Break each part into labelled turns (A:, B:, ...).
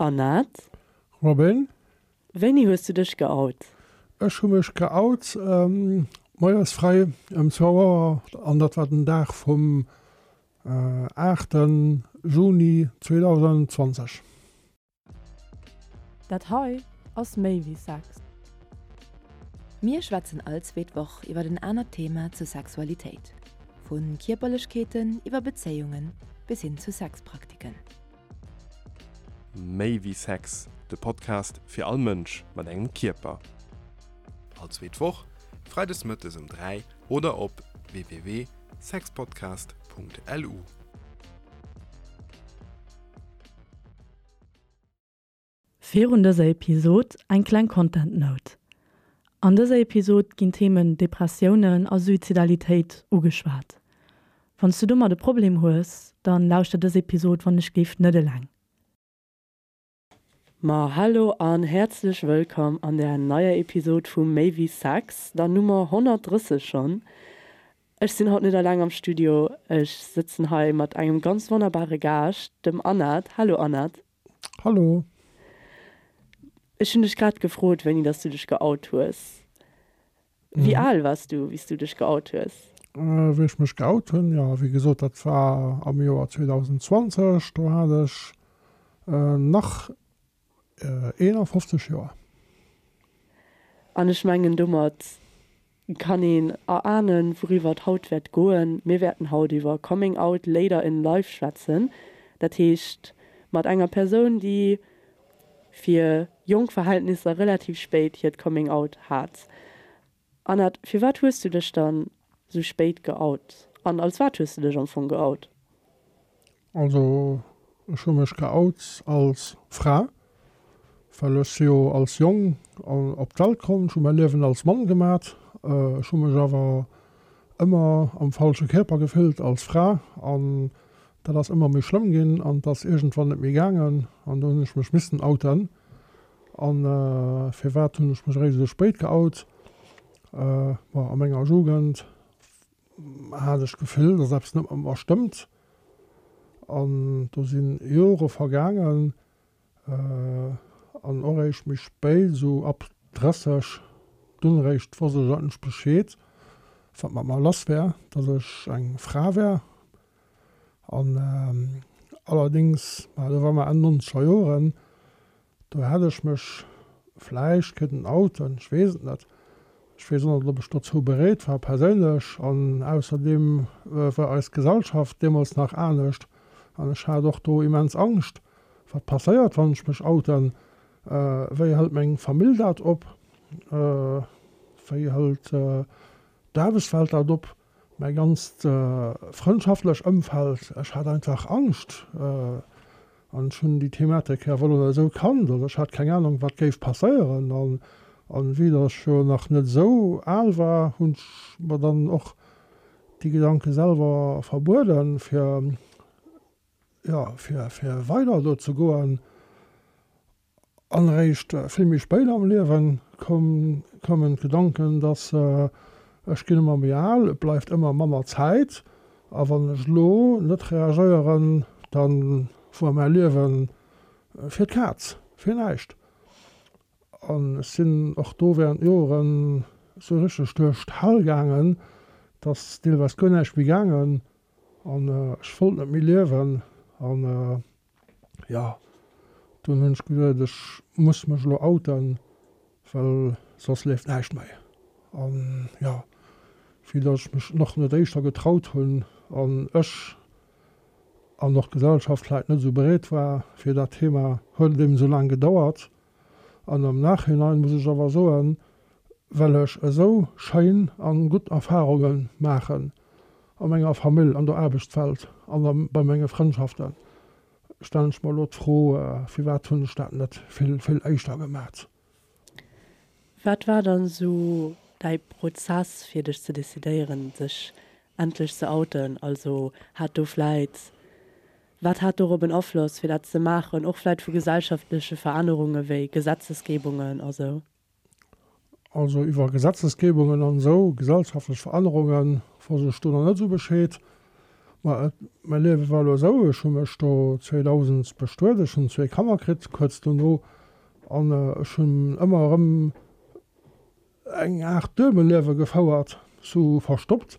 A: Anat.
B: Robin.
A: Wéini hues du dech geout?
B: Ech hu mech geout moies frei ëm zwou Auer an dat war den Dag vum 8 Juni 2020.
A: Dat hei ass méi wéi Sex.
C: Mir schwätzen all zweet Woch iwwer en anert Thema zur Sexualitéit, vu Kierperlechkeeten iwwer Bezéiungen bis hin zu Sexpraktiken.
D: Méi wéi Sex, de Podcast fir all Mënsch mat engem Kierper.
E: All zweet Woch, freides mëttes um 3 oder op www.sexpodcast.lu.
A: Virun dëser Episod eng kleng Content Note. An dëser Episod ginn d'Themen Depressiounen a Suizidalitéit ugeschwat. Wann s du domat e Problem hues, dann lauschter dës Episod wann ech géif net eleng. Ma hallo an häerzlech wëllkomm an der neier Episod vu Méi wéi Sex, der Nummer 130 schonn. Ech sinn haut net eleng am Studio, ech sëtzen hei mat engem ganz wonnerbare Gaascht, dem Anat. Hallo Anat.
B: Hallo.
A: Ech hunn dech grad gefrot, wéini dass du dech geout hues. Wéi al wars du, wéi s du dech geout hues?
B: Wéi ech mech geout hunn? Jo, wéi gesot, dat war am Joer 2020. Do hat ech nach 51 Joer.
A: An ech mengen, domat kann een erahnen, wouriwwer et haut wäert goen. Mir wäerten haut iwwer Coming Out Later in Life schwätzen. Dat heescht, mat enger Persoun, déi fir jonk Verhältnisser relativ spéit hiert Coming Out hat. Anat, firwat hues du dech dann sou spéit geout? An als wat hues du dech am Fong geout?
B: Also ech hu mech geout als Fra, well ech si jo als Jong op d'Welt komm, ech hu mäi Liewen als Mann gemat, ech hu mech awer ëmmer am falsche Kierper gefillt als Fra an dat ass ëmmer méi schlëmm ginn an et ass iergendwann net méi gaangen an do hunn ech mech missen outen. An firwat hunn ech mech eréischt esou spéit geout? Bon, a menger Jugend hat ech d'Gefill, dass eppes net mat mer stëmmt. An do si Jore vergaangen an och eréischt méi spéit, esou ab 30, dunn eréischt wosst ech eigentlech Bescheed, wat mat mer lass wär, dass ech eng Fra wär. An allerdéngs, ma do war mer Enn nonzeger Joren, Do hätt ech mech vläicht kënnen outen, ech weess et net. Ech weess och net, ob ech dozou bereet war perséinlech. An ausserdeem war eis Gesellschaft deemools nach anescht an ech hat och do immens Angscht, wat passéiert, wann ech mech outen, wéi hëlt meng Famill dat op, wéi hëlt d'Aarbechtswelt dat op, mäi ganzt frëndschaftlech Ëmfeld. Ech hat einfach Angscht. An ech hunn déi Thematik awer elo net esou kannt, also ech hat keng Ahnung wat géif passéieren. An an vue dass ech jo nach net esou al war, hunn ech mer dann och déi Gedanke selwer verbueden, fir jo fir fir weider do ze goen. An eréischt vill méi spéit am Liewen koumen d'Gedanken, dass ech ginn ëmmer méi al, et bleift ëmmer manner Zäit a wann ech elo net reagéieren, da wuar mäi Liewe fir d'Kaz, fir näischt. An ech sinn och do während Joren esou richteg duerch d'Hell gaangen, dass deelweis guer näischt méi gaangen an ech wollt net méi liewen. An Jo, dunn hunn ech geduet, ech muss mech elo outen, well soss leeft näischt méi. An jo, vue datt ech mech nach net éischter getraut hunn an ech an och d'Gesellschaft vläit net esou bereet war fir dat Thema, huet et eben esou laang gedauert. An am Nachhinein muss ech awer soen, well ech esou schéin an gutt Erfahrungen maachen a menger Famill, an der Aarbechtswelt an bei menge Frëndschaften, stellen ech mer elo d'Fro, firwat hunn ech dat net vill, vill éischter gemat?
A: Wat war dann esou däi Prozess fir dech ze decidéieren sech endlech ze outen? Also hat do vläit Wat hat dorop en Afloss, fir dat ze maachen, och vläit vu gesellschaftleche Verännerunge wéi Gesetzesgebungen a sou?
B: Also iwwer Gesetzesgebungen an esou gesellschaftlech Verännerunge wosst ech do nach net esou Bescheed. Ma et, mäi Liewe war elo esou, ech hu mech do 2000 bestuet, ech hunn zwee Kanner kritt kuerz dono an ech hunn ëmmer erëm eng Aart Duebelliewe gefouert, sou verstoppt.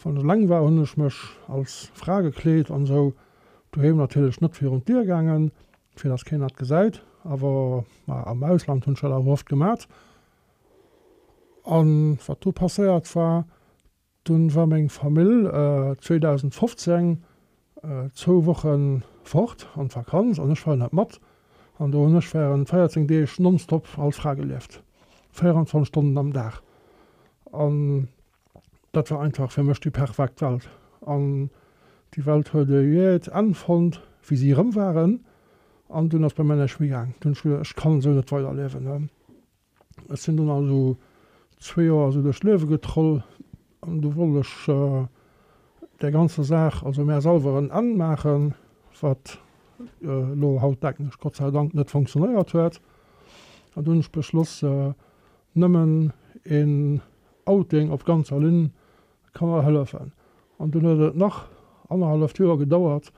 B: Wann ech eleng war, hunn ech mech als Fra gekleet an esou, doheem natierlech net virun d'Dier gaangen, fir dass keen dat gesäit, awer ma am Ausland hunn ech dat awer oft gemat. An wat do passéiert war, Dunn war meng Famill 2015 zwou Wochen fort an d'Vakanz an ech war net mat. An do hunn ech während 14 Deeg nonstop als Fra gelieft, 24 Stonnen am Dag. An dat war einfach fir mech déi perfekt Welt. An déi Welt huet e jäht Enn fonnt, wéi si erëm waren. An dunn ass bei mär näischt méi gaang. Dunn hunn ech geduecht, ech kann esou net weiderliewen. Ech sinn dunn also zwee Joer esou duerch d'Liewe getroll an du wollt ech där ganzer Saach, also mär selwer en Enn maachen, wat elo haut denken ech Gott sei Dank net funktionéiert huet. An du hunn ech beschloss, nëmmen een Outing op ganzer Linn ka mer hëllefen. An dunn huet et nach annerhalleft Joer gedauert,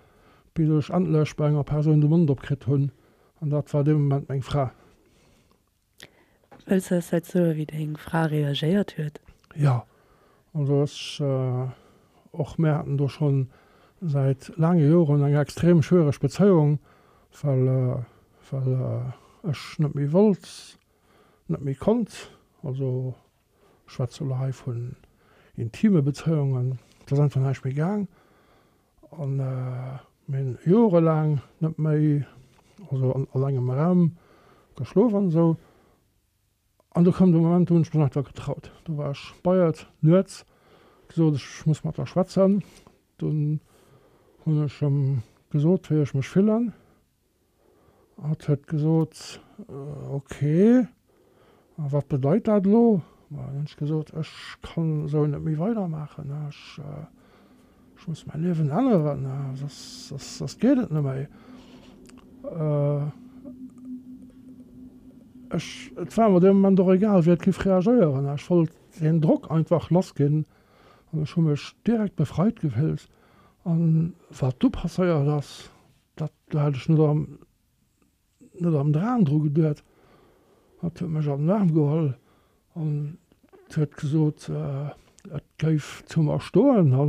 B: bis ech endlech bei enger Persoun de Mond opkritt hunn, an dat war dee Moment meng Fra.
A: Wëlls de eis vläit soen, wéi deng Fra reagéiert huet?
B: Jo, also ech, och mär haten do schonn säit laange Joren eng extrem schwiereg Bezéiung, well, well ech net méi wollt, net méi konnt. Also ech schwätze elo hei vun intime Bezéiungen, et ass einfach näischt méi gaang. An mir hunn jorelaang net méi, also an engem Raum geschlof an esou. An du koum de Moment, do hunn ech mech einfach getraut. Do war ech bei et nuets, gesot, ech muss mat der schwätzen. Dunn hunn ech em gesot, wéi ech mech fillen. Hatt huet gesot, Ok, a wat bedeit dat elo? Ma dann hunn ech gesot, Ech kann esou net méi weidermaachen, ech muss mäi Liewen änneren, soss, soss geet et net méi. Ech, et war mer dee Moment och egal, wéi et géif reagéieren, ech wollt deen Drock einfach lassginn an ech hu mech direkt befreit gefillt. An wat du passéiert ass, Dat do hat ech net am net am Dram dru geduet. Hatt huet mech an den Aarm geholl an huet gesot, et géif zu mer stoen a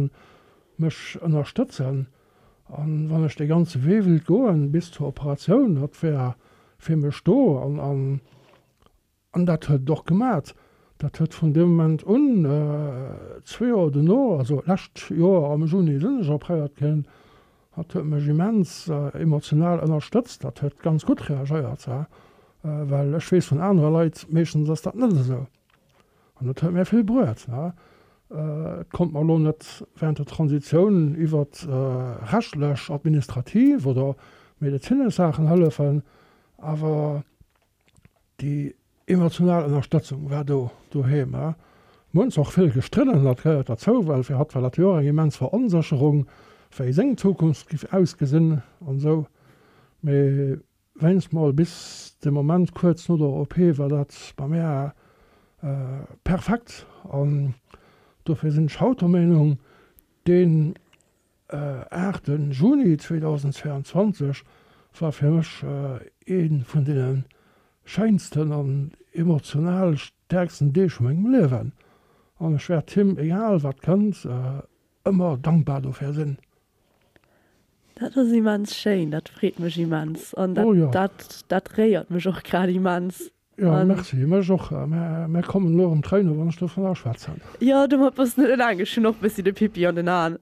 B: mech ënnerstëtzen. An wann ech dee ganze Wee wéilt goen bis zur Operatioun, hatt wär fir mech do. An An dat huet et och gemat. Dat huet vun deem Moment un, zwee Joer dono, also lescht Joer am Juni sinn ech opréiert ginn, dat huet mech immens emotional ënnerstëtzt. Dat huet ganz gutt reagéiert, well ech weess vun anere Leit, meeschtens ass dat net esou. An dat huet mir vill bruet. Et konnt mer elo net während der Transitioun iwwert rechtlech, administrativ oder medezinesch Saachen hëllefen, awer Déi emotional Ënnerstëtzung war do doheem. Mir hunn zwar och vill gestridden, dat gehéiert derzou, well fir hatt war dat jo och eng immens Veronsécherung, wéi seng Zukunft giff ausgesinn an esou. Mee wéinst mol bis de Moment kuerz no der OP war dat bei mär perfekt an dofir sinn ech haut der Meenung, deen 8 Juni 2022 war fir mech ee vun deene schéinsten an emotional stäerksten Deeg vu mengem Liewen an ech wäert him, egal wat kënnt, ëmmer dankbar dofir sinn.
A: Dat ass immens schéin, dat freet mech immens an dat dat réiert mech och grad immens.
B: Jo, merci, mech och. Mär kommen elo erëm Tréinen, wann ech dovunner schwätzen.
A: Jo, domat bass de net eleng. Ech hunn och e bëssi de Pippi an den Aen.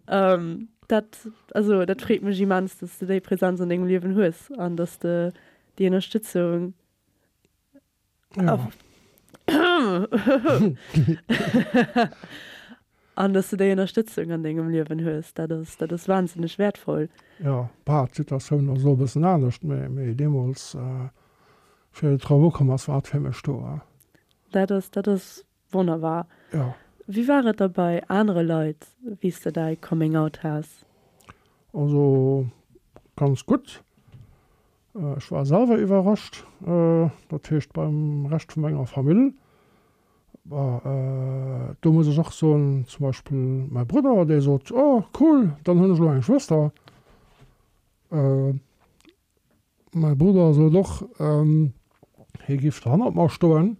A: Dat, also dat freet mech immens, dass de déi Präsenz an dengem Liewen hues an dass de déi Ënnerstëtzung an dass de déi Ënnerstëtzung an dengem Liewen hues. Dat ass, dat ass wahnsinneg wäertvoll.
B: Jo, bah, d'Situatioun ass elo e bëssen anescht, mee deemools Fir et drop ukomm ass, war et fir mech do.
A: Dat ass, dat ass wonnerbar.
B: Jo.
A: Wéi war et da bei anere Leit, wéi s de däi Coming Out has?
B: Also ganz gutt. Ech war selwer iwwerrascht, dat heescht beim Rescht vu menger Famill. Bon, do muss ech och soen, zum Beispill mäi Brudder, dee sot, Oh cool, dann hunn ech elo eng Schwëster. Mäi Brudder sot och, hie giff hannert mer stoen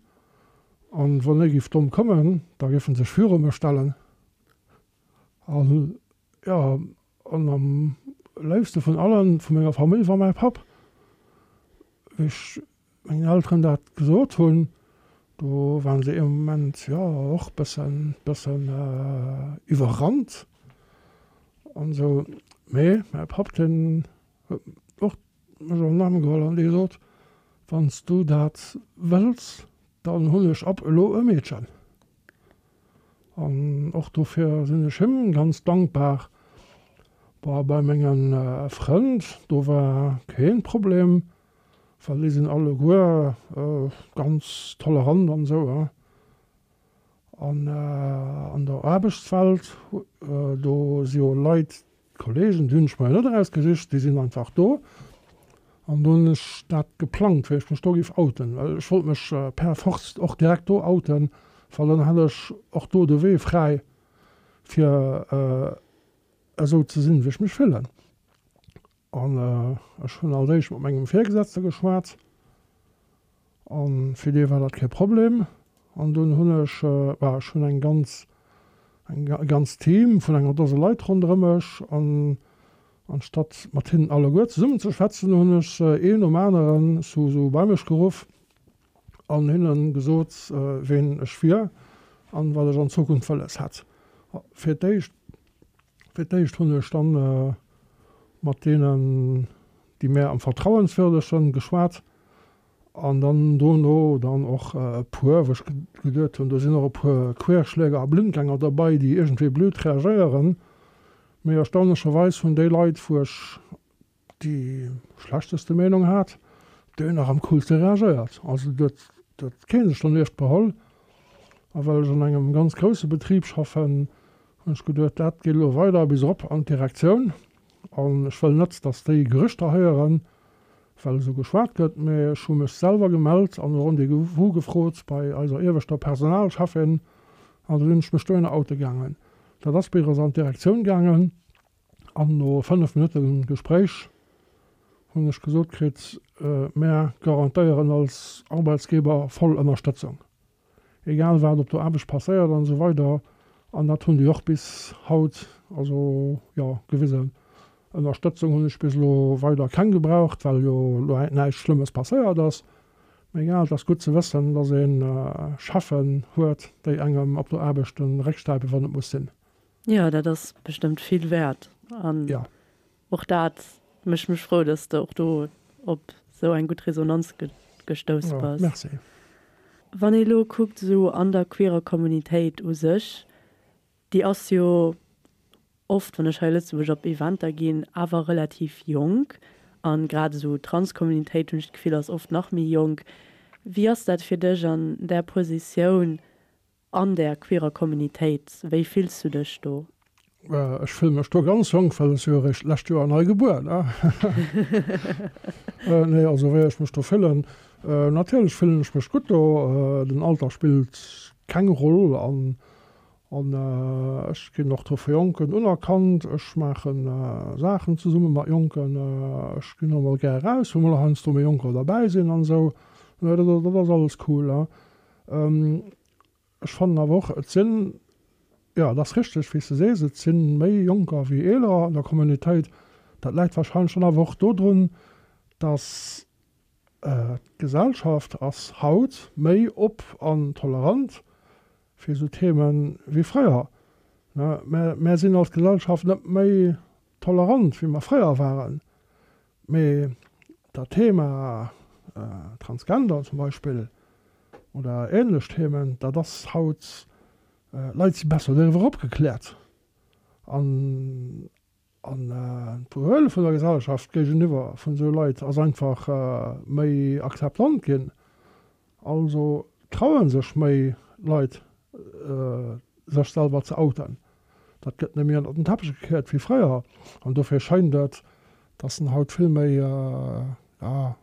B: an wann hie giff domm kommen, da giff en sech viru mech stellen. An jo, an am léifste vun allen vu menger Famill war mäi Papp. Wéi ech mengen Elteren dat gesot hunn, do waren se ee Moment jo och bëssen, bëssen iwwerrannt an esou. Mee mäi Papp, deen huet och mech an den Aarm geholl an dee sot, Wann s du dat wëlls, dann hunn ech ab elo e Meedchen. An och dofir sinn ech him ganz dankbar. Bon, bei menge Frënn, do war keen Problem, well déi sinn alleguer ganz tolerant an esou. An an der Aarbechtswelt, do si jo Leit, D'Kollegen, déi hunn ech mer jo net erausgesicht, déi sinn einfach do. An do hunn ech dat geplangt, wéi ech mech do géif outen, well ech wollt mech per force och direkt do outen, well dann hat ech och do de Wee fräi, fir esou ze sinn, wéi ech mech fillen. An ech hunn als éischt mat mengem Virgesetzte geschwat an fir dee war dat kee Problem. An dunn hunn ech, bah, ech hunn eng ganz, eng, e ganzt Team vun enger Dose Leit ronderëm mech an anstatt mat hinnen alleguer zesummen ze schwätzen, hunn ech se een nom aneren sou, sou bei mech geruff an hinnen gesot, ween ech wier an wat ech an Zukunft wëlles hätt. Fir d'éischt Fir d'éischt hunn ech dann mat deenen, déi mär am vertrauenswürdegsten, geschwat an dann dono dann och e puer, wou ech geduet hunn, do sinn och e puer Querschläger a Blindgänger derbei, déi iergendwéi blöd reagéieren. Mee erstaunlecherweis hunn déi Leit, wou ech déi schlechteste Meenung hat, déi hunn nach am coolste reagéiert. Also do huet kee sech donieft beholl. A well ech an engem ganz grousse Betrib schaffen, hunn ech geduet, dat geet elo weider bis erop an d'Direktioun. An ech wëll net, datt déi Gerüchter héieren, well esou geschwat gëtt, mee ech hu mech selwer gemellt an e Rendez-vous gefrot bei eiser ieweschter Personalcheffin an da sinn ech mech dohinner oute gaangen. Dat ass bis an d'Direktioun gaangen. An no 5 Minutte Gespréich hunn ech gesot kritt, Mär garantéieren als Arbeitsgeber voll Ënnerstëtzung, egal wat op der Aarbecht passéiert an esou weider. An dat hunn déi och bis haut also, jo, gewisen. Ënnerstëtzung hunn ech bis elo weider keng gebraucht, well jo elo näischt Schlëmmes passéiert ass. Mee egal, et ass gutt ze wëssen, dass ee Cheffen huet, déi engem op der Aarbecht de Réck stäipen, wann et muss sinn.
A: Jo, dat ass bestëmmt vill wäert. An och dat mécht mech frou, dass de och do op esou eng gutt Resonanz gestouss bass.
B: Merci.
A: Wann ee lo kuckt esou an der queerer Communitéit u sech, déi ass jo oft, wann ech hei Lëtzebuerg op Eventer ginn, awer relativ jonk. An grad esou d'Trans-Communitéit, hunn ech d'Gefill, ass oft nach méi jonk. Wéi ass dat fir dech an där Positioun, An där queerer Communitéit, wéi fills du dech do?
B: Ech fille mech do ganz jonk, well ech si jo eréischt d'lescht Joer nei gebuer, ne? Nee, also wéi ech mech do fillen, natierlech fillen ech mech gutt do. Den Alter spillt keng Roll an an ech ginn och do vu Jonken unerkannt. Ech maache Saachen zesumme mat Jonken, ech ginn och mol gär eraus, wou mol heiansdo méi Jonker derbäi sinn an esou. Dat ass alles cool. Ech fannen awer och, et sinn, jo, et ass richteg, wéi s de sees, et si méi Jonker wéi Eeler an der Communautéit. Dat läit warscheinlech dann awer och dodrun, datt d'Gesellschaft ass haut méi op an tolerant fir esou Themen wéi fréier. Mär sinn als Gesellschaft net méi tolerant, wéi mer fréier waren. Mee dat Thema Transgender zum Beispill oder ähnlech Themen, dat ass haut, d'Leit si besser doriwwer opgekläert an an d'Behuele vun der Gesellschaft géigeniwwer vun esou Leit ass einfach méi akzeptant ginn. Also traue sech méi Leit sech selwer ze outen. Dat gëtt net méi ënnert den Teppech gekéiert wéi fréier. An dofir schéint et, dass en haut vill méi, ja,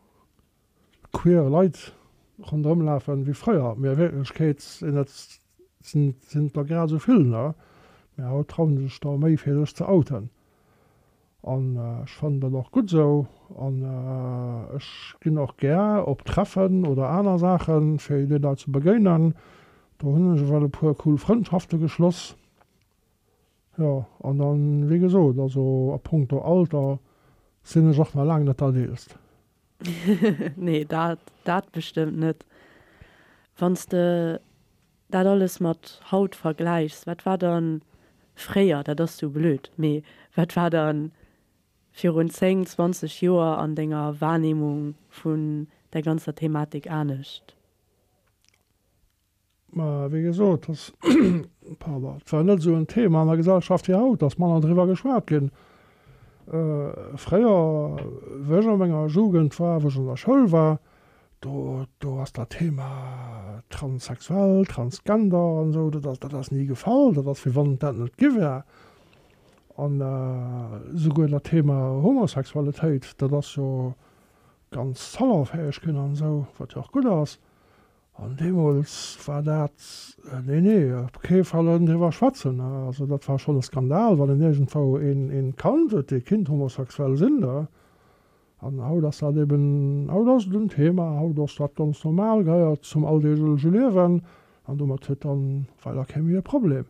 B: queer Leit. ronderëm lafen wéi fréier, mee a Wierklechkeet sinn et sinn et der grad esou vill, ne? Mee haut trauen sech der méi fir sech ze outen an ech fannen dat och gutt esou an ech ginn och gär op Treffen oder aner Saachen fir déi Leit ze begéinen. Do hunn ech ewell e puer cool Frëndschafte geschloss. Jo, an dann, wéi gesot, also a punkto Alter sinn ech och nach laang net dat Eelst.
A: Nee, dat, dat bestëmmt net. Wann s de dat alles mat haut vergläichs, wat war dann fréier, dat ass sou blöd, mee wat war dann virun 10, 20 Joer an denger Wahrnehmung vun der ganzer Thematik anescht?
B: Mä wéi gesot, dass, pardon, et war net esou en Thema an der Gesellschaft wéi haut, dass manner driwwer geschwat ginn. Fréier, wéi ech a menger Jugend war, wou ech an der Schoul war, do, do ass dat Thema transsexuell, transgender an esou, dat ass, dat ass ni gefall. Dat ass, wéi wann et dat net gi wär. An esouguer dat Thema Homosexualitéit, dat ass jo ganz salonfäeg ginn an esou, wat jo och gutt ass. An deemools war dat, nee, nee, op kee Fall en driwwer schwätzen. Also dat war schonn e Skandal, wann een iergendwou een, een kannt huet, dee kinnt homosexuell sinn. An haut ass dat eben, haut ass et en Thema, haut ass dat ganz normal, gehéiert zum alldeegleche Liewen an domat huet dann weider kee méi e Problem.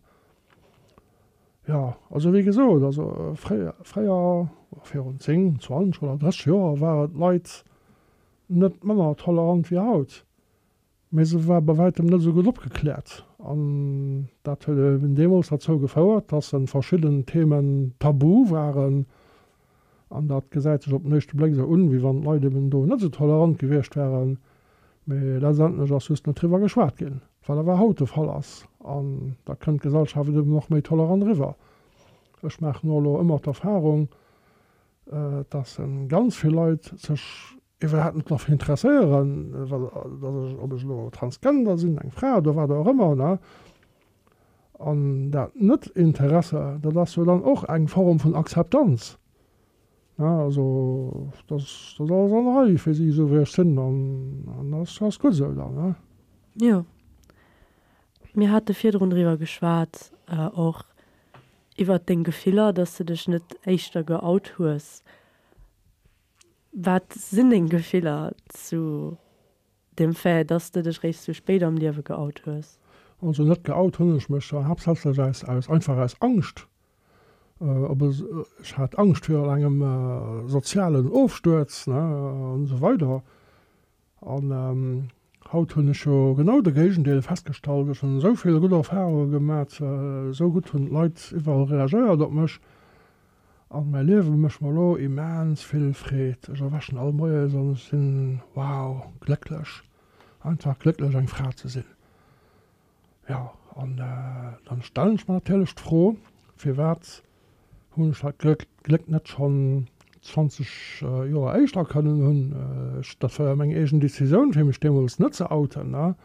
B: Jo, also wéi gesot, also fréier, fréier, virun 10, 20 oder 30 Joer ware d'Leit Net manner tolerant wéi haut, mee se war bei wäitem net esou gutt opgekläert. An dat huet eben deemools derzou gefouert, dass en verschidden Themen tabu waren. An dat gesäit sech op den éischte Bléck esou un, wéi wann d'Leit eben do net esou tolerant gewiescht wären, mee letztendlech ass just net driwwer geschwat ginn, wat awer haut de Fall ass. An da kënnt d'Gesellschaft eben och méi tolerant eriwwer. Ech maachen och elo ëmmer d'Erfahrung, dass ganz vill Leit sech iwwerhaapt net derfir interesséieren, dass ech, ob ech elo Transgender sinn, eng Fra oder wat och ëmmer, ne. An dat Net-Interesse, dat ass jo dann och eng Form vun Akzeptanz, ne. Also dat ass alles an der Rei fir si, esou wéi ech sinn, an dat ass gutt esou dann, ne.
A: Jo, mir hate virdrun driwwer geschwat och, Iwwert deng Gefiller, dass de dech net éischter geout hues. Wat sinn deng Gefiller zu dem Fait, dass de dech réischt sou spéit am Liewe geout hues?
B: Also net geout hunn ech mech haaptsächlech aus aus einfach aus Angscht. Op ech hat Angscht virun engem sozialen Ofstuerz, ne, an esou weider. An haut hunn ech jo genau de Géigendeel festgestallt. Ech hunn esou vill gutt Erfarunge gemat, esou gutt hunn d'Leit iwwerall reagéiert op mech. An mäi Liewe mécht mer elo immens vill Freed. Ech erwächen all Moies an ech sinn, wow, glécklech. Einfach glécklech eng Fra ze sinn. Jo, an dann stellen ech mer natierlech d'Fro, firwat hunn ech dat Gléck net schonn 20 Joer éischter kënnen hunn? Ech, dat war jo meng eegen Decisioun, fir mech deemools net ze outen, ne?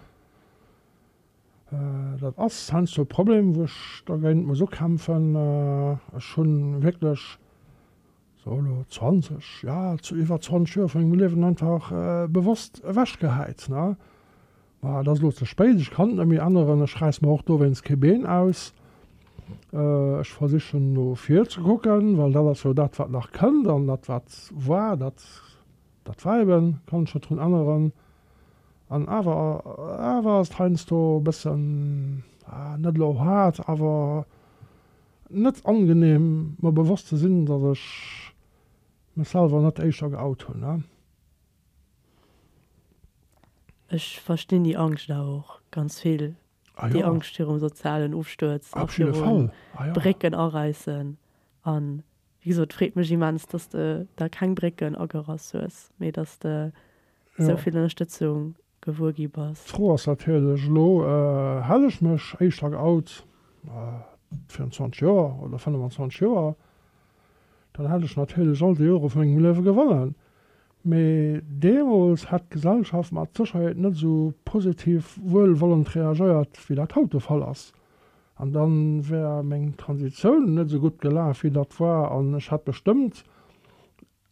B: Dat ass heiansdo e Problem, wou ech dergéint muss ukämpfen. Ech hu wierklech, so elo 20, jo, iwwer 20 Joer vu mengem Liewen einfach bewosst ewechgehäit, ne? Ma et ass elo ze spéit, ech kann et net méi änneren, ech räiss mer och dowéinst kee Been aus. Ech versichen no vir ze kucken, well dat ass jo dat wat nach kënnt an dat wat war, dat dat war eben, kann ech net drun änneren. An awer awer ass et heiansdo e bëssen, net elo haart, awer net angenehm mer bewosst ze sinn, datt ech mech selwer net éischter geout hunn.
A: Ech verstinn déi Angscht awer och ganz vill. Ah jo. Déi Angscht virum sozialen Ofstuerz a virum Brécken aräissen. An wéi gesot, et freet mech immens, dass de der keng Brécken agerass hues, mee dass de esou vill Ënnerstëtzung gewuer gi bass.
B: D'Fro ass natierlech elo, Hätt ech mech éischter geout, virun 20 Joer oder 25 Joer, dann hätt ech natierlech all déi Jore vu mengem Liewe gewonnen. Mee deemools hätt d'Gesellschaft mat Sécherheet net esou positiv wuelwollend reagéiert, wéi dat haut de Fall ass. An da wär meng Transitioun net esou gutt gelaf, wéi dat war, an ech hätt bestëmmt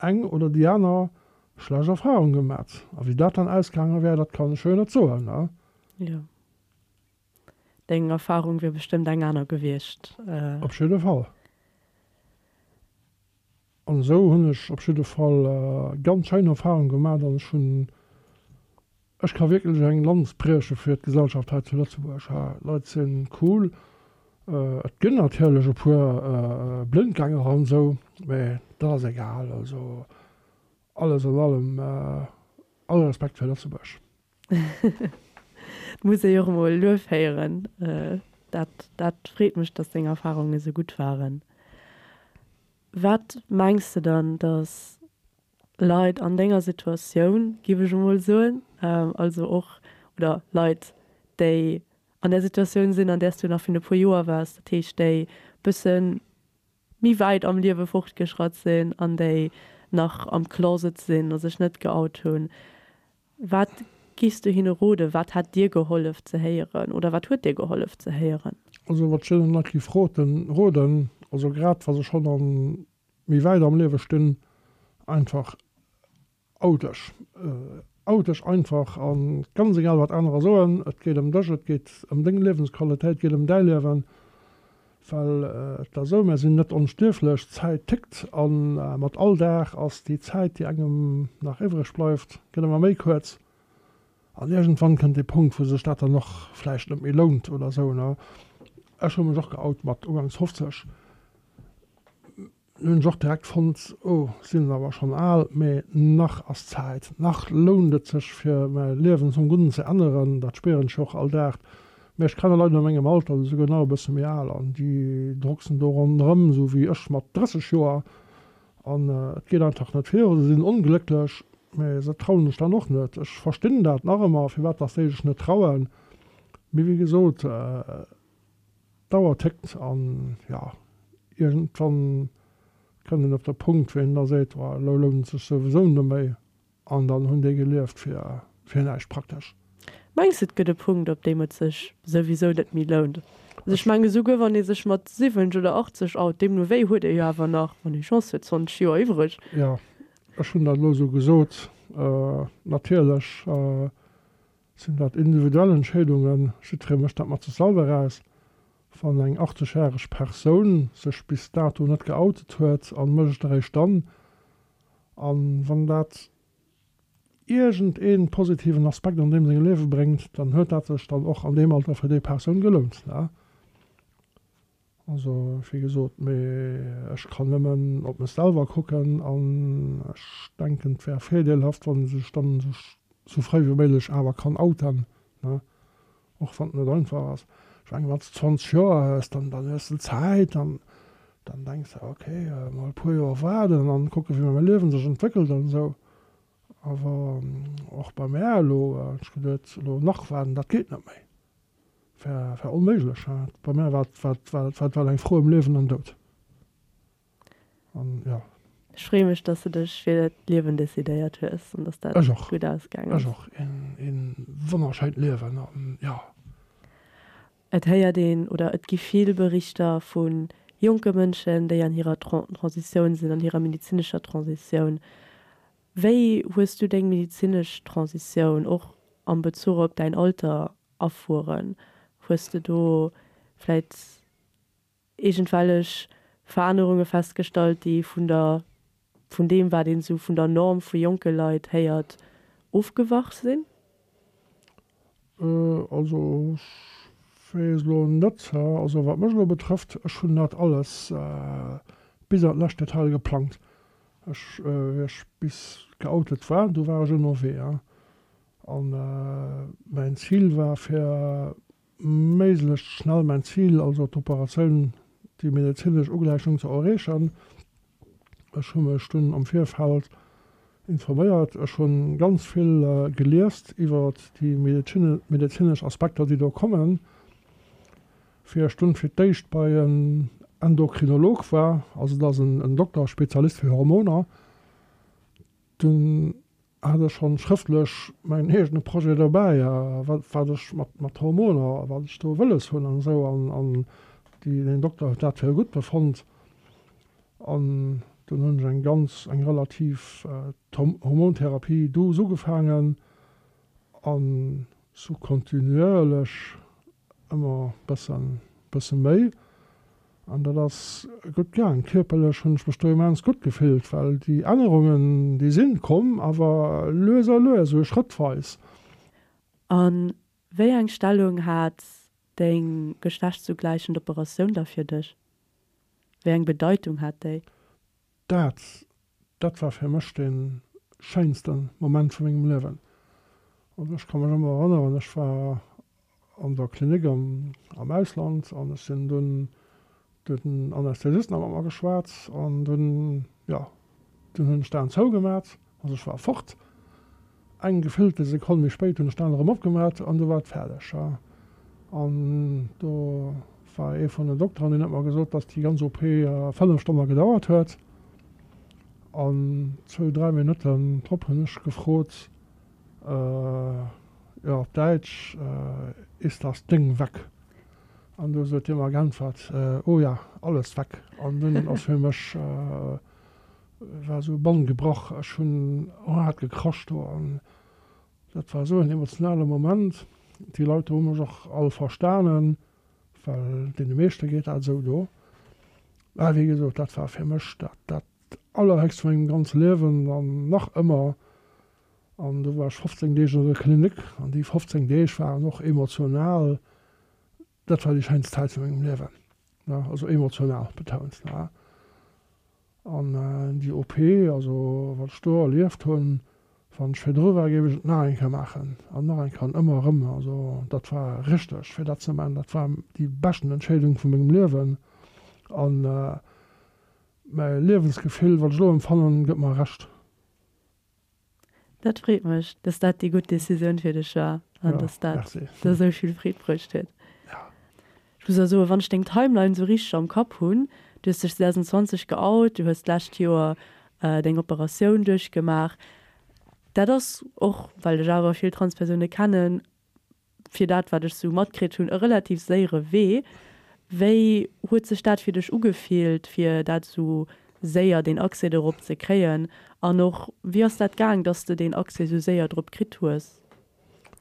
B: eng oder déi aner. Schlecht Erfahrung gemat. A wéi dat dann ausgaange wär, dat kann ech jo net soen, ne?
A: Jo. Deng Erfahrung wier bestëmmt eng aner gewiescht.
B: Op jidde Fall. An esou hunn ech op jidde Fall ganz schéin Erfahrung gemat an ech hunn, ech ka wierklech eng Lanz brieche fir d'Gesellschaft hei zu Lëtzebuerg. D'Leit sinn cool. Et ginn natierlech e puer Blindgänger an esou, mä dat ass egal. Also alles an allem all Respekt fir Lëtzebuerg.
A: Et muss ee jo och emol Luef héieren. Dat, dat freet mech, dass deng Erfahrungen esou gutt waren. Wat mengs de dann, dass Leit an denger Situatioun, giff ech emol soen, also och, oder Leit, déi an där Situatioun sinn, an där s du nach virun e puer Joer waars, dat heescht déi bësse méi wäit am Liewe fortgeschratt sinn an déi nach am Closet sinn a sech net geout hunn, Wat giffs du hinne roden? Wat hätt dir gehollef ze héieren oder wat huet dir gehollef ze héieren?
B: Also wat ech deenen Leit giff roten, roden, also grad wa se schonn an méi wäit am Liewe stinn, einfach out dech. Out dech einfach an ganz egal wat anerer soen, et geet ëm dech, et geet ëm deng Liewensqualitéit, et geet ëm däi Liewen. Well et ass esou, mär sinn net onstierflech, d'Zäit tickt a mat all Dag ass déi Zäit, déi engem nach iwwreg bleift, gëtt ëmmer méi kuerz. An iergendwann kënnt dee Punkt, wou sech dat dann och vläicht net méi lount oder esou. Ech hu mech och geout mat ugangs 50. Nun hunn ech och direkt fonnt, oh, sinn awer schonn al, mee nach ass Zäit, nach lount et sech fir mäi Liewen zum Gudden ze änneren, dat spieren ech jo och all Dag. Mee ech kenne Leit a mengem Alter, oder souguer nach e bësse méi al, an déi drucksen do ronderëm, esou wéi ech mat 30 Joer, an et geet einfach net viru, se sinn onglécklech, mee se trauen sech dann och net. Ech verstinn dat nach ëmmer, firwat dass déi sech net trauen, mee wéi gesot, D'Auer tickt an jo, iergendwann kënnt een op de Punkt, wou een da seet, oh elo lount et sech souwisou net méi an dann hunn déi gelieft fir fir näischt praktesch.
A: Mengs de et gëtt e Punkt, op deem et sech souwisou net méi lount? Also ech mengen esouguer wann ee sech mat 70 oder 80 out, deemno wéi huet ee jo awer nach, wann ee Chance huet, 20 Joer iwwreg.
B: Jo, ech hunn dat elo esou gesot. Natierlech Sinn dat individuell Entscheedungen? Jiddweree mécht dat mat sech selwer aus. Wann eng 80 järeg Persoun sech bis dato net geoutet huet an mécht et eréischt dann, an wann dat iergend een positiven Aspekt an deem sengem Liewe bréngt, dann huet dat sech dann och an deem Alter fir déi Persoun gelount. Also wéi gesot, mee ech kann nëmmen op mech selwer kucken an ech denken et wär virdeelhaft wann ee sech dann sou fréi wéi méiglech awer kann outen, ne, och wann et net einfach ass. Ech mengen wann s de 20 Joer hues, dann dann hues de Zäit an dann denks de ok mol e puer Joer waarden an kucke wéi mäi Liewen sech entwéckelt an esou. Awer och bei mär elo, ech geduet elo nach waarden, dat geet net méi. War war onméiglech. Bei mär war war war war eng Fro ëm Liewen an Doud. An jo.
A: Ech freeë mech, dass de dech fir d'Liewen decidéiert hues an dass dat
B: Ech och.
A: gutt ausgaang ass.
B: Ech och. Een een wonnerschéint Liewen an jo.
A: Et héiert een oder et gi vill Berichter vu jonke Mënschen, déi an hirer Transitioun sinn, an hirer medezinescher Transitioun. Wéi hues du deng medezinesch Transitioun och am Bezuch op däin Alter erfueren? Hues de do vläit iergendwellech Verännerunge festgestallt, déi vun der, vun deem wat een esou vun der Norm vu jonke Leit héiert, ofgewach sinn?
B: Also ech weess elo net, also wat mech elo betrëfft, ech hunn dat alles bis an d'lescht Detail geplangt. Ech, wéi ech bis geoutet war, du war ech ënnerwee. An mäin Zil war fir méiglechst schnell mäin Zil, also d'Operatioun, déi medezinesch Ugläichung ze erreechen. Ech hu mech dunn am Virfeld informéiert, ech hu ganz vill geliest iwwer déi medezinesch Aspekter, déi do kommen, fir ech dunn fir d'éischt bei en Endokrinolog war, also dat ass en Dokter, Spezialist fir Hormoner. Dunn hat ech schonn schrëftlech mäin eegene Projet dobäi, wat wat ech mat mat Hormoner, wat ech do wëlles hunn an esou an an déi deen Dokter huet dat fir gutt befonnt an. Dunn hunn ech eng ganz, eng relativ Hormontherapie douce ugefaangen an sou kontinuierlech ëmmer bëssen, bësse méi. An dat ass gutt gaang. Kierperlech hunn ech mech do immens gutt gefillt, well déi Ännerungen, déi sinn komm, awer lues a lues, esou schrëttweis.
A: A wéi eng Stellung hat deng geschlechtszugläichend Operatioun da fir dech? Wéi eng Bedeitung hat déi?
B: Dat, dat war fir mech dee schéinste Moment vu mengem Liewen. Also ech ka mech ëmmer erënneren, ech war an der Klinik am Ausland an ech sinn dunn, do huet den Anästhesist nach mat mer geschwat an dunn, jo, dunn hunn ech d'Aen zougemat, also ech war fort. Eng gefillte Sekonn méi spéit hunn ech d'Aen erëm opgemat an du war et fäerdeg. An do war ee vun den Dokteren, deen huet mer gesot, dass déi ganz OP 5 Stonne gedauert huet. An zwou, dräi Minutten drop hunn ech gefrot, jo op Däitsch, Ist das Ding weg? An du huet hie mer geäntwert, Oh ja, alles weg. An dunn ass fir mech war esou e Bann gebrach. Ech hunn haart gekrasch do an dat war esou en emotionale Moment. Déi Leit do hu mech och all verstanen, well deene meeschte geet dat esou do. Mä wéi gesot, dat war fir mech dat dat Allerhéchst vu mengem ganze Liewen an nach ëmmer. An do war ech 15 Deeg an der Klinik an déi 15 Deeg waren och emotional, dat war déi schéinst Zäit vu mengem Liewen, ne, also emotional betount, ne. An déi OP, also wat ech do erlieft hunn, wann ech virdru war, géif ech et nach eng Kéier maachen an nach eng Kéier an ëmmer erëm. Also dat war richteg fir dat ze maachen, dat war déi beschten Entscheedung vu mengem Liewen an mäi Liewensgefill, wat ech elo empfannen, gëtt mer Recht.
A: Dat freet mech, dass dat déi gutt Decisioun fir dech war an dass dat der esou vill Freed bruecht huet. Ech muss och soen, wann ech deng Timeline esou richteg am Kapp hunn, du hues dech 2020 geout, du hues d'lescht Joer deng Operatioun duerchgemaach, dat ass och, well ech awer vill Transpersoune kennen, fir dat wat ech sou matkritt hunn, e relativ séiere Wee. Wéi huet sech dat fir dech ugefillt, fir dat sou séier, deen Accès dorop ze kréien? An och, wéi ass dat gaang, dass de deen Accès sou séier drop kritt hues?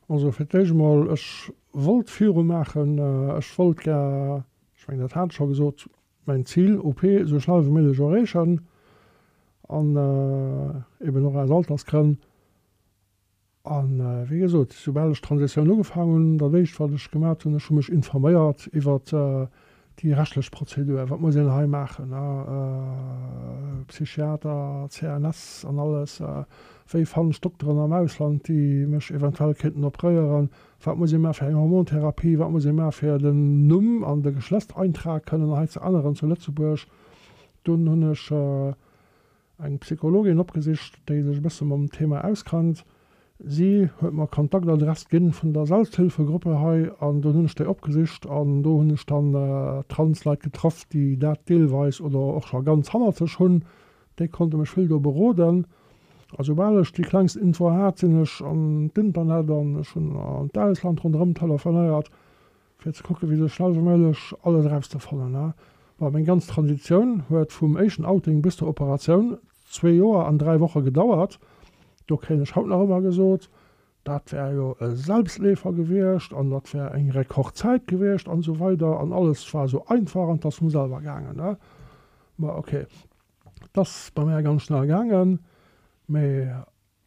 B: Also fir d'éischt emol, ech wollt viru maachen, ech wollt gär, ech mengen dat hat ech scho gesot, mäin Zil, OP, esou schnell wéi méiglech erreechen an eben och aus Altersgrënn. A wéi gesot, soubal ech d'Transitioun ugefaangen hunn, dat éischt wat ech gemat hunn, ech hu mech informéiert iwwert déi rechtlech Prozedur, wat muss een hei maachen, Psychiater, CNS an alles, wéi fannen ech Dokteren am Ausland, déi mech eventuell kéinten opréieren, wat muss ee maache fir eng Hormontherapie, wat muss ee maache fir den Numm an de Geschlechtseintrag kënnen hei ze änneren zu Lëtzebuerg. Dunn hunn ech Eng Psychologin opgesicht, déi sech e bësse mam Thema auskennt. Si huet mer Kontaktadress ginn vun der Selbsthilfegruppe hei an dunn hunn ech déi opgesicht an do hunn ech dann Trans-Leit getraff, déi dat deelweis oder och scho ganz hannert sech hunn. Déi konnte mech vill do beroden. A soubal ech déi klengst Info hat, sinn ech an d'Internet an ech hunn an d'Ausland ronderëm telefonéiert. Fir ze kucken, wéi sou schnell wéi méiglech alles erauszefannen. Bon, meng ganz Transitioun huet vum éischten Outing bis zur Operatioun zwee Joer an 3 Woche gedauert. Do kréien ech haut nach ëmmer gesot, dat wär jo e Selbstleefer gewiescht an dat wär eng Rekordzäit gewiescht an esou weider an alles war esou einfach an 't ass vum selwer gaangen. Ma ok, 't ass bei mär ganz schnell gaangen, mee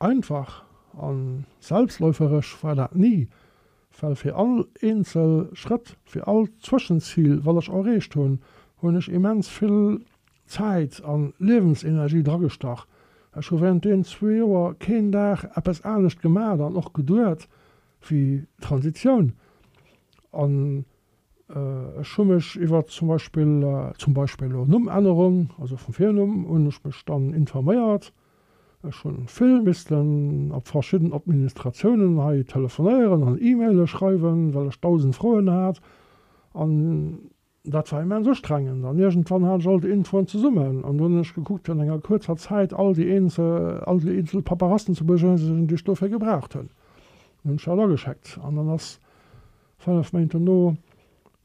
B: Einfach a selbstläuferesch war dat ni, well fir all eenzel Schrëtt, fir all Zwëschenzil, wat ech erreecht hunn, hunn ech immens vill Zäit a Liewensenergie dragestach. Ech hu während deenen zwee Joer keen Dag eppes anescht gemat an och geduet wéi Transitioun. An Ech hu mech iwwer zum Beispill, zum Beispill elo Nummännerung, also vum Virnumm, hunn ech mech dann informéiert. Ech hu vill missten op verschidden Administratiounen hei telefonéieren an E-Maile schreiwen, well ech 1.000 Froen hat. An dat war immens ustrengend. An iergendwann hat ech all déi Infoen zesummen an dunn hunn ech gekuckt, fir an enger kuerzer Zäit all déi eenzel, all déi eenzel Paperassen ze beschënnegen, déi ech dofir gebraucht hunn. Dann hunn ech dat ageschéckt an dann ass 5 Méint dono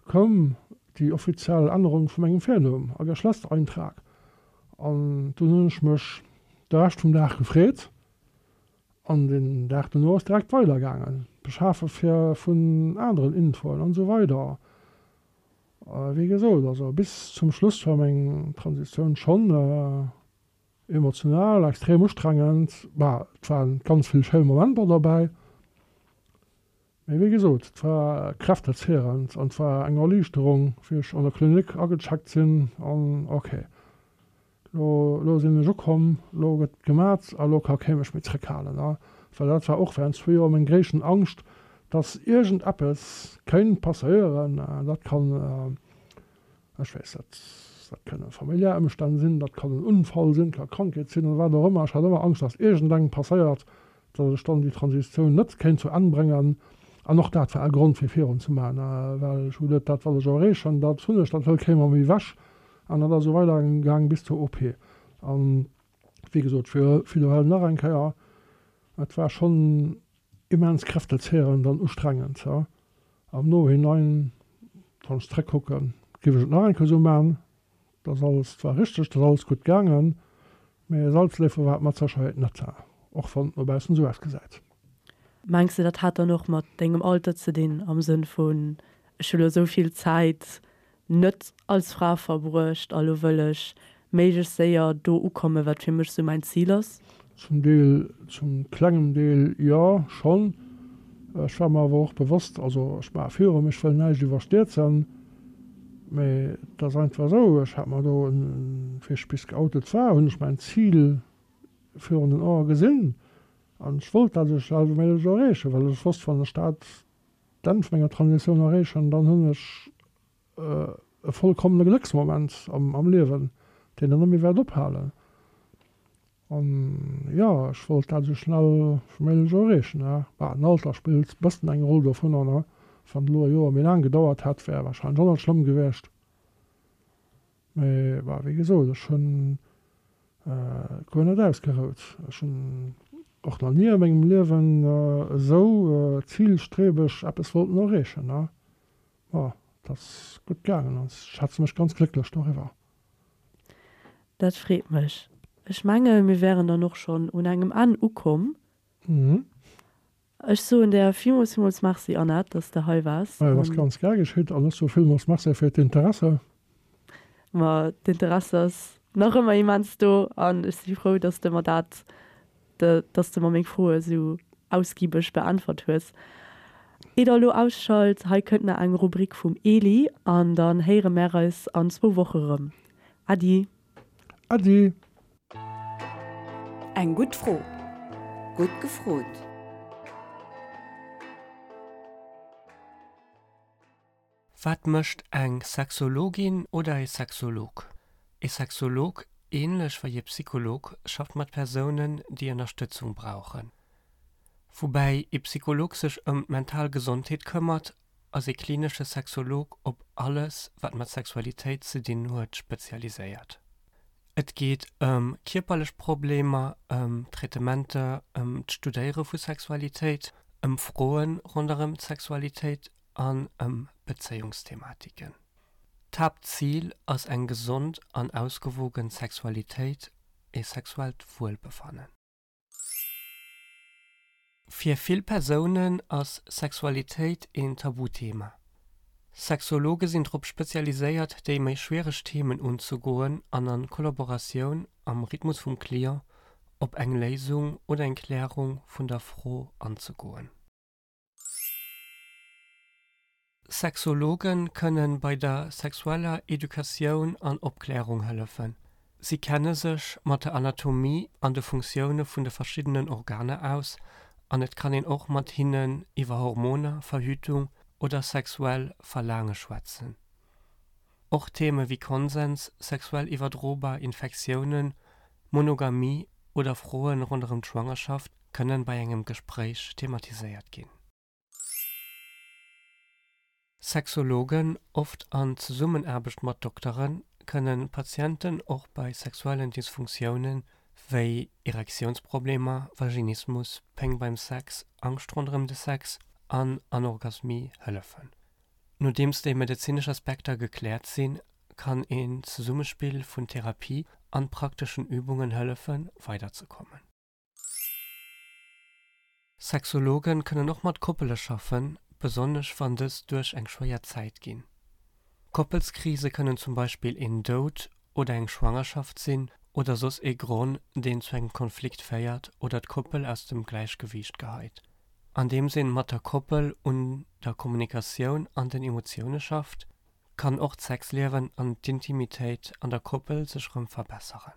B: koum déi offiziell Ännerung vu mengem Virnumm a Geschlechtseintrag. An dunn hunn ech mech de Rescht vum Dag gefreet an den Dag dono ass direkt weider gaangen, beschafe fir vun aneren Infoen an esou weider. Wéi gesot, also bis zum Schluss war meng Transitioun schonn emotional extrem ustrengend. Bah, et waren ganz vill schéi Momenter derbäi, mee wéi gesot, et war kräftezehrend an et war eng Erliichterung, wéi ech an der Klinik agecheckt sinn an ok, Lo, lo sinn ech ukomm, lo gëtt gemat a lo ka kee mech méi zréckhalen. A well dat war och während zwou Joer meng gréissten Angscht, dass iergend eppes kéint passéieren. Dat kann, ech weess net, dat kënne familiär Ëmstänn sinn, dat kann en Unfall sinn, ka Krankheet sinn oder wat och ëmmer. Ech hat ëmmer Angscht, dass iergendengem passéiert, dass ech dann déi Transitioun net kéint zu Enn bréngen. An och dat war e Grond fir virun ze maachen, well ech hu geduet, dat wat ech erreechen, dat hunn ech, dat hëlt kee mer méi ewech. An dat ass esou weider gaang bis zur OP. An wéi gesot, ech widderhuelen nach eng Kéier, et war schonn immens kräftezehrend an ustrengend. Am Nohinein, wann ech zréckkucken, géif ech et nach eng Kéier esou maachen. Et ass alles zwar richteg, et ass alles gutt gaangen, mee e Salzléffel war et mat Sécherheet net, och wann et no baussen esou ausgesäit.
A: Mengs de, dat hat dann och mat dengem Alter ze dinn, am Sënn vun, ech hu lo esou vill Zäit net als Fra verbruecht a lo wëll ech méiglechst séier do ukommen, wat fir mech sou mäin Zil ass?
B: Zum Deel, zum klengem Deel jo, schonn. Ech war mer awer och bewosst, also ech maache virum, ech wëll näischt iwwerstierzen, mee et ass einfach esou, ech hat mer do, wéi ech bis geoutet war, hunn ech mäin Zil virun den Ae gesinn an ech wollt dat esou schnell wéi méiglech erreechen, well ech wosst, wann ech dat d'Enn vun menger Transitioun erreechen, dann hunn ech e vollkommene Glécksmoment am Liewen, deen dann net méi wäert ophalen. An jo, ech wollt dat esou schnell wéi méiglech erreechen. Bah, den Alter spillt e bëssen eng Roll dovunner, ne? Wann et elo e Joer méi laang gedauert hätt, wär warscheinlech och net schlëmm gewiescht. Mee bah, wéi gesot, ech hunn guer net ausgerout. Ech hunn och nach ni a mengem Liewen esou zilstrebeg eppes wollten erreechen. Ma et ass gutt gaangen an ech schätze mech ganz glécklech doriwwer.
A: Dat freet mech. Ech menge mir wären dann och schonn un engem Enn ukomm. Ech soen der villmools, villmools Merci, Annette, dass de hei waars.
B: Et ass ganz gär geschitt an ech soe villmools Merci fir d'Interesse.
A: Ma d'Interesse ass nach ëmmer immens do an ech si frou, dass de mer dat, dass de mer meng Froe sou ausgibeg beäntwert hues. Ier der elo ausschalt, hei kënnt nach eng Rubrik vum Eli an dann héiere mär eis an zwou Woche rëm. Äddi!
B: Äddi!
C: Eng gutt Fro. Gutt gefrot.
F: Wat mécht eng Sexologin oder e Sexolog? E Sexolog, ähnlech wei e Psycholog, schafft mat Persounen, déi Ënnerstëtzung brauchen. Woubäi e Psycholog sech ëm d'mental Gesondheet këmmert, ass e klinesche Sexolog op alles, wat mat Sexualitéit ze dinn huet, spezialiséiert. Et geet ëm kierperlech Problemer, ëm Traitementer, ëm d'Studéiere vu Sexualitéit, ëm Froe ronderëm d'Sexualitéit an ëm Bezéiungsthematiken. D'Haaptzil ass eng gesond an ausgewogen Sexualitéit, e sexuellt Wuelbefannen. Fir vill Persounen ass Sexualitéit een Tabuthema. Sexologe sinn drop spezialiséiert déi méi schwiereg Themen unzegoen an an Kollaboratioun am Rhythmus vum Client op eng Léisung oder eng Klärung vun der Fro anzegoen. Sexologe kënne bei der sexueller Educatioun an Opklärung hëllefen. Si kenne sech mat der Anatomie an de Funktioune vun de verschiddenen Organer aus an et kann een och mat hinnen iwwer Hormoner, Verhütung oder sexuell Verlaange schwätzen. Och Theme wéi Konsens, sexuell iwwerdrobar Infektiounen, Monogamie oder Froe ronderëm d'Schwangerschaft kënnen bei engem Gespréich thematiséiert ginn. Sexologen, oft an Zesummenaarbecht mat Dokteren, kënnen Patienten och bei sexuellen Dysfunktioune wéi Erektiounsproblemer, Vaginismus, Péng beim Sex, Angscht ronderëm de Sex an Anorgasmie hëllefen. Nodeems déi medezinesch Aspekter gekläert sinn, kann een Zesummespill vun Therapie. an prakteschen Übungen hëllefen, weiderzekommen. Sexologen kënnen och mat Koppele schaffen, besonnesch wann dës duerch eng schwéier Zäit ginn. Koppelskrise kënnen zum Beispill een Doud oder eng Schwangerschaft sinn oder soss ee Gronn, deen zu engem Konflikt féiert oder d'Koppel aus dem Gläichgewiicht geheit. Andeems een mat der Koppel un der Kommunikatioun an den Emotioune schafft, kann och d'Sexliewen an d'Intimitéit an der Koppel sech rëm verbesseren.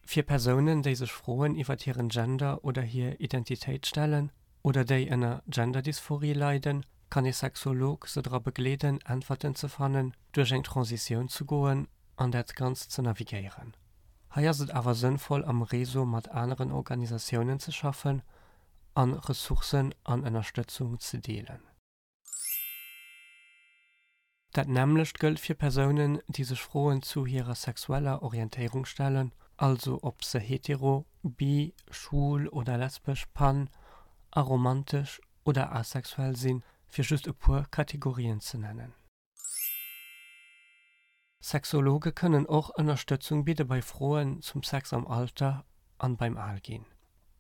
F: Fir Persounen, déi sech Froen iwwert hiren Gender oder hir Identitéit stellen oder déi ënner Genderdysphorie leiden, kann ee Sexolog se dra begleeden, Äntwerten ze fannen, duerch eng Transitioun ze goen an dat Ganzt ze navigéieren. Hei ass et awer sënnvoll am Réseau mat aneren Organisatiounen ze schaffen an Ressourcen an Ënnerstëtzung ze deelen. Dat nämmlecht gëllt fir Persounen, déi sech Froen zu hirer sexueller Orientéierung stellen, also ob se hetero, bi, schwul oder lesbesch, pan, aromantesch oder asexuell sinn, fir just e puer Kategorien ze nennen. Sexologe kënnen och Ënnerstëtzung bidde bei Froen zum Sex am Alter an beim Alginn.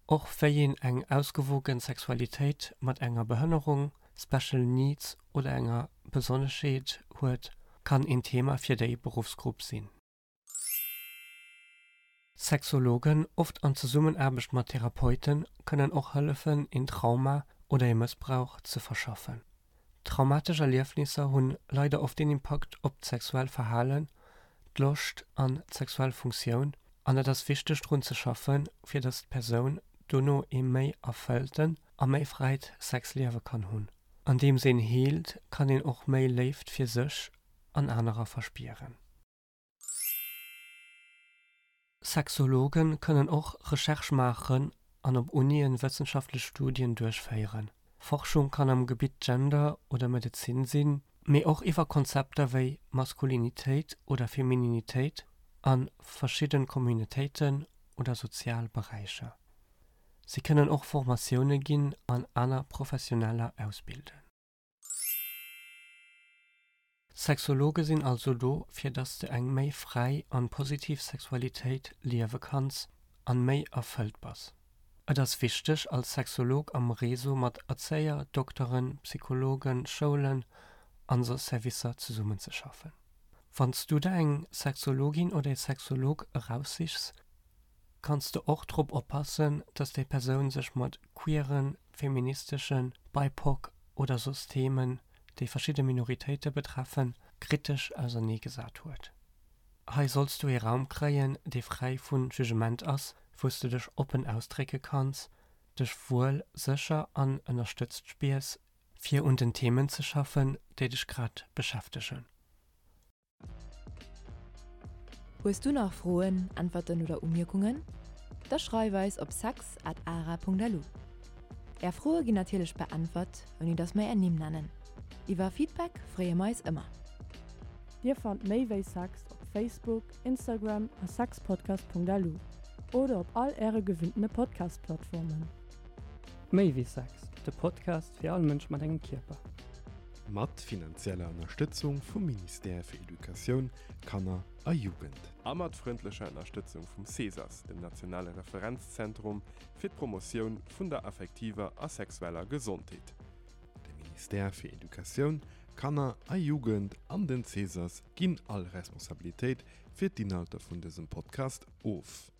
F: Och wéi een eng ausgewogen Sexualitéit mat enger Behënnerung, Special Needs oder enger Besonneschheet huet, kann een Thema fir déi Beruffsgrupp sinn. Sexologen, oft an Zesummenaarbecht mat Therapeuten, kënnen och hëllefen, een Trauma oder ee Mëssbrauch ze verschaffen. Traumatesch Erliefnisser hunn leider oft een Impakt op d'sexuell Verhalen, d'Loscht an d'sexuell Funktioun an et ass wichteg drun ze schaffen, fir dass d'Persoun dono ee méi erfëllten a méi fräit Sexliewe kann hunn. Andeems een heelt, kann een och méi Léift fir sech an anerer verspieren. Sexologen kënnen och Recherche maachen an op Unien wëssenschaftlech Studien duerchféieren. Forschung kann am Gebitt Gender oder Medezin sinn, mee och iwwer Konzepter wéi Maskulinitéit oder Femininitéit a verschidden Communautéiten oder sozial Beräicher. Si kënnen och Formatioune ginn an aner Professioneller ausbilden. Sexologe sinn also do fir dass de eng méi fräi an positiv Sexualitéit liewe kanns an méi erfëllt bass. Et ass wichteg als Sexolog am Réseau mat Erzéier, Dokteren, Psychologen, Schoulen an soss Servicer zesummenzeschaffen. Wanns du der eng Sexologin oder ee Sexolog eraussichs, kanns de och drop oppassen, dass déi Persoun sech mat queeren, feministeschen, BIPOC oder soss Themen, déi verschidde Minoritéite betreffen, kritesch auserneegesat huet. Hei solls du ee Raum kréien, dee fräi vu Jugement ass, wou s du dech oppen ausdrécke kanns, dech wuel, sécher an ënnerstëtzt spiers, fir un den Themen ze schaffen, déi dech grad beschäftegen.
C: Hues du nach Froen, Äntwerten oder Umierkungen? Da schreif eis op sex at ara.lu. Är Froe ginn natierlech beäntwert, ouni dass mer är Nimm nennen. Iwwer Feedback freeë mer eis ëmmer.
A: Dir fannt méi wéi Sex op Facebook, Instagram a sexpodcast.lu oder op all äre gewinntene Podcast-Plattformen.
F: Méi wéi Sex, de Podcast fir all Mënsch mat engem Kierper.
E: Mat finanzieller Ënnerstëtzung vum Ministère fir Educatioun, Kanner a Jugend.
D: A mat frëndlecher Ënnerstëtzung vum CESAS, dem nationale Referenzzentrum fir d'Promotioun vun der affektiver a sexueller Gesondheet.
E: De Ministère fir Educatioun, Kanner a Jugend an den CESAS ginn all Responsabilitéit fir d'Inhalter vun dësem Podcast of.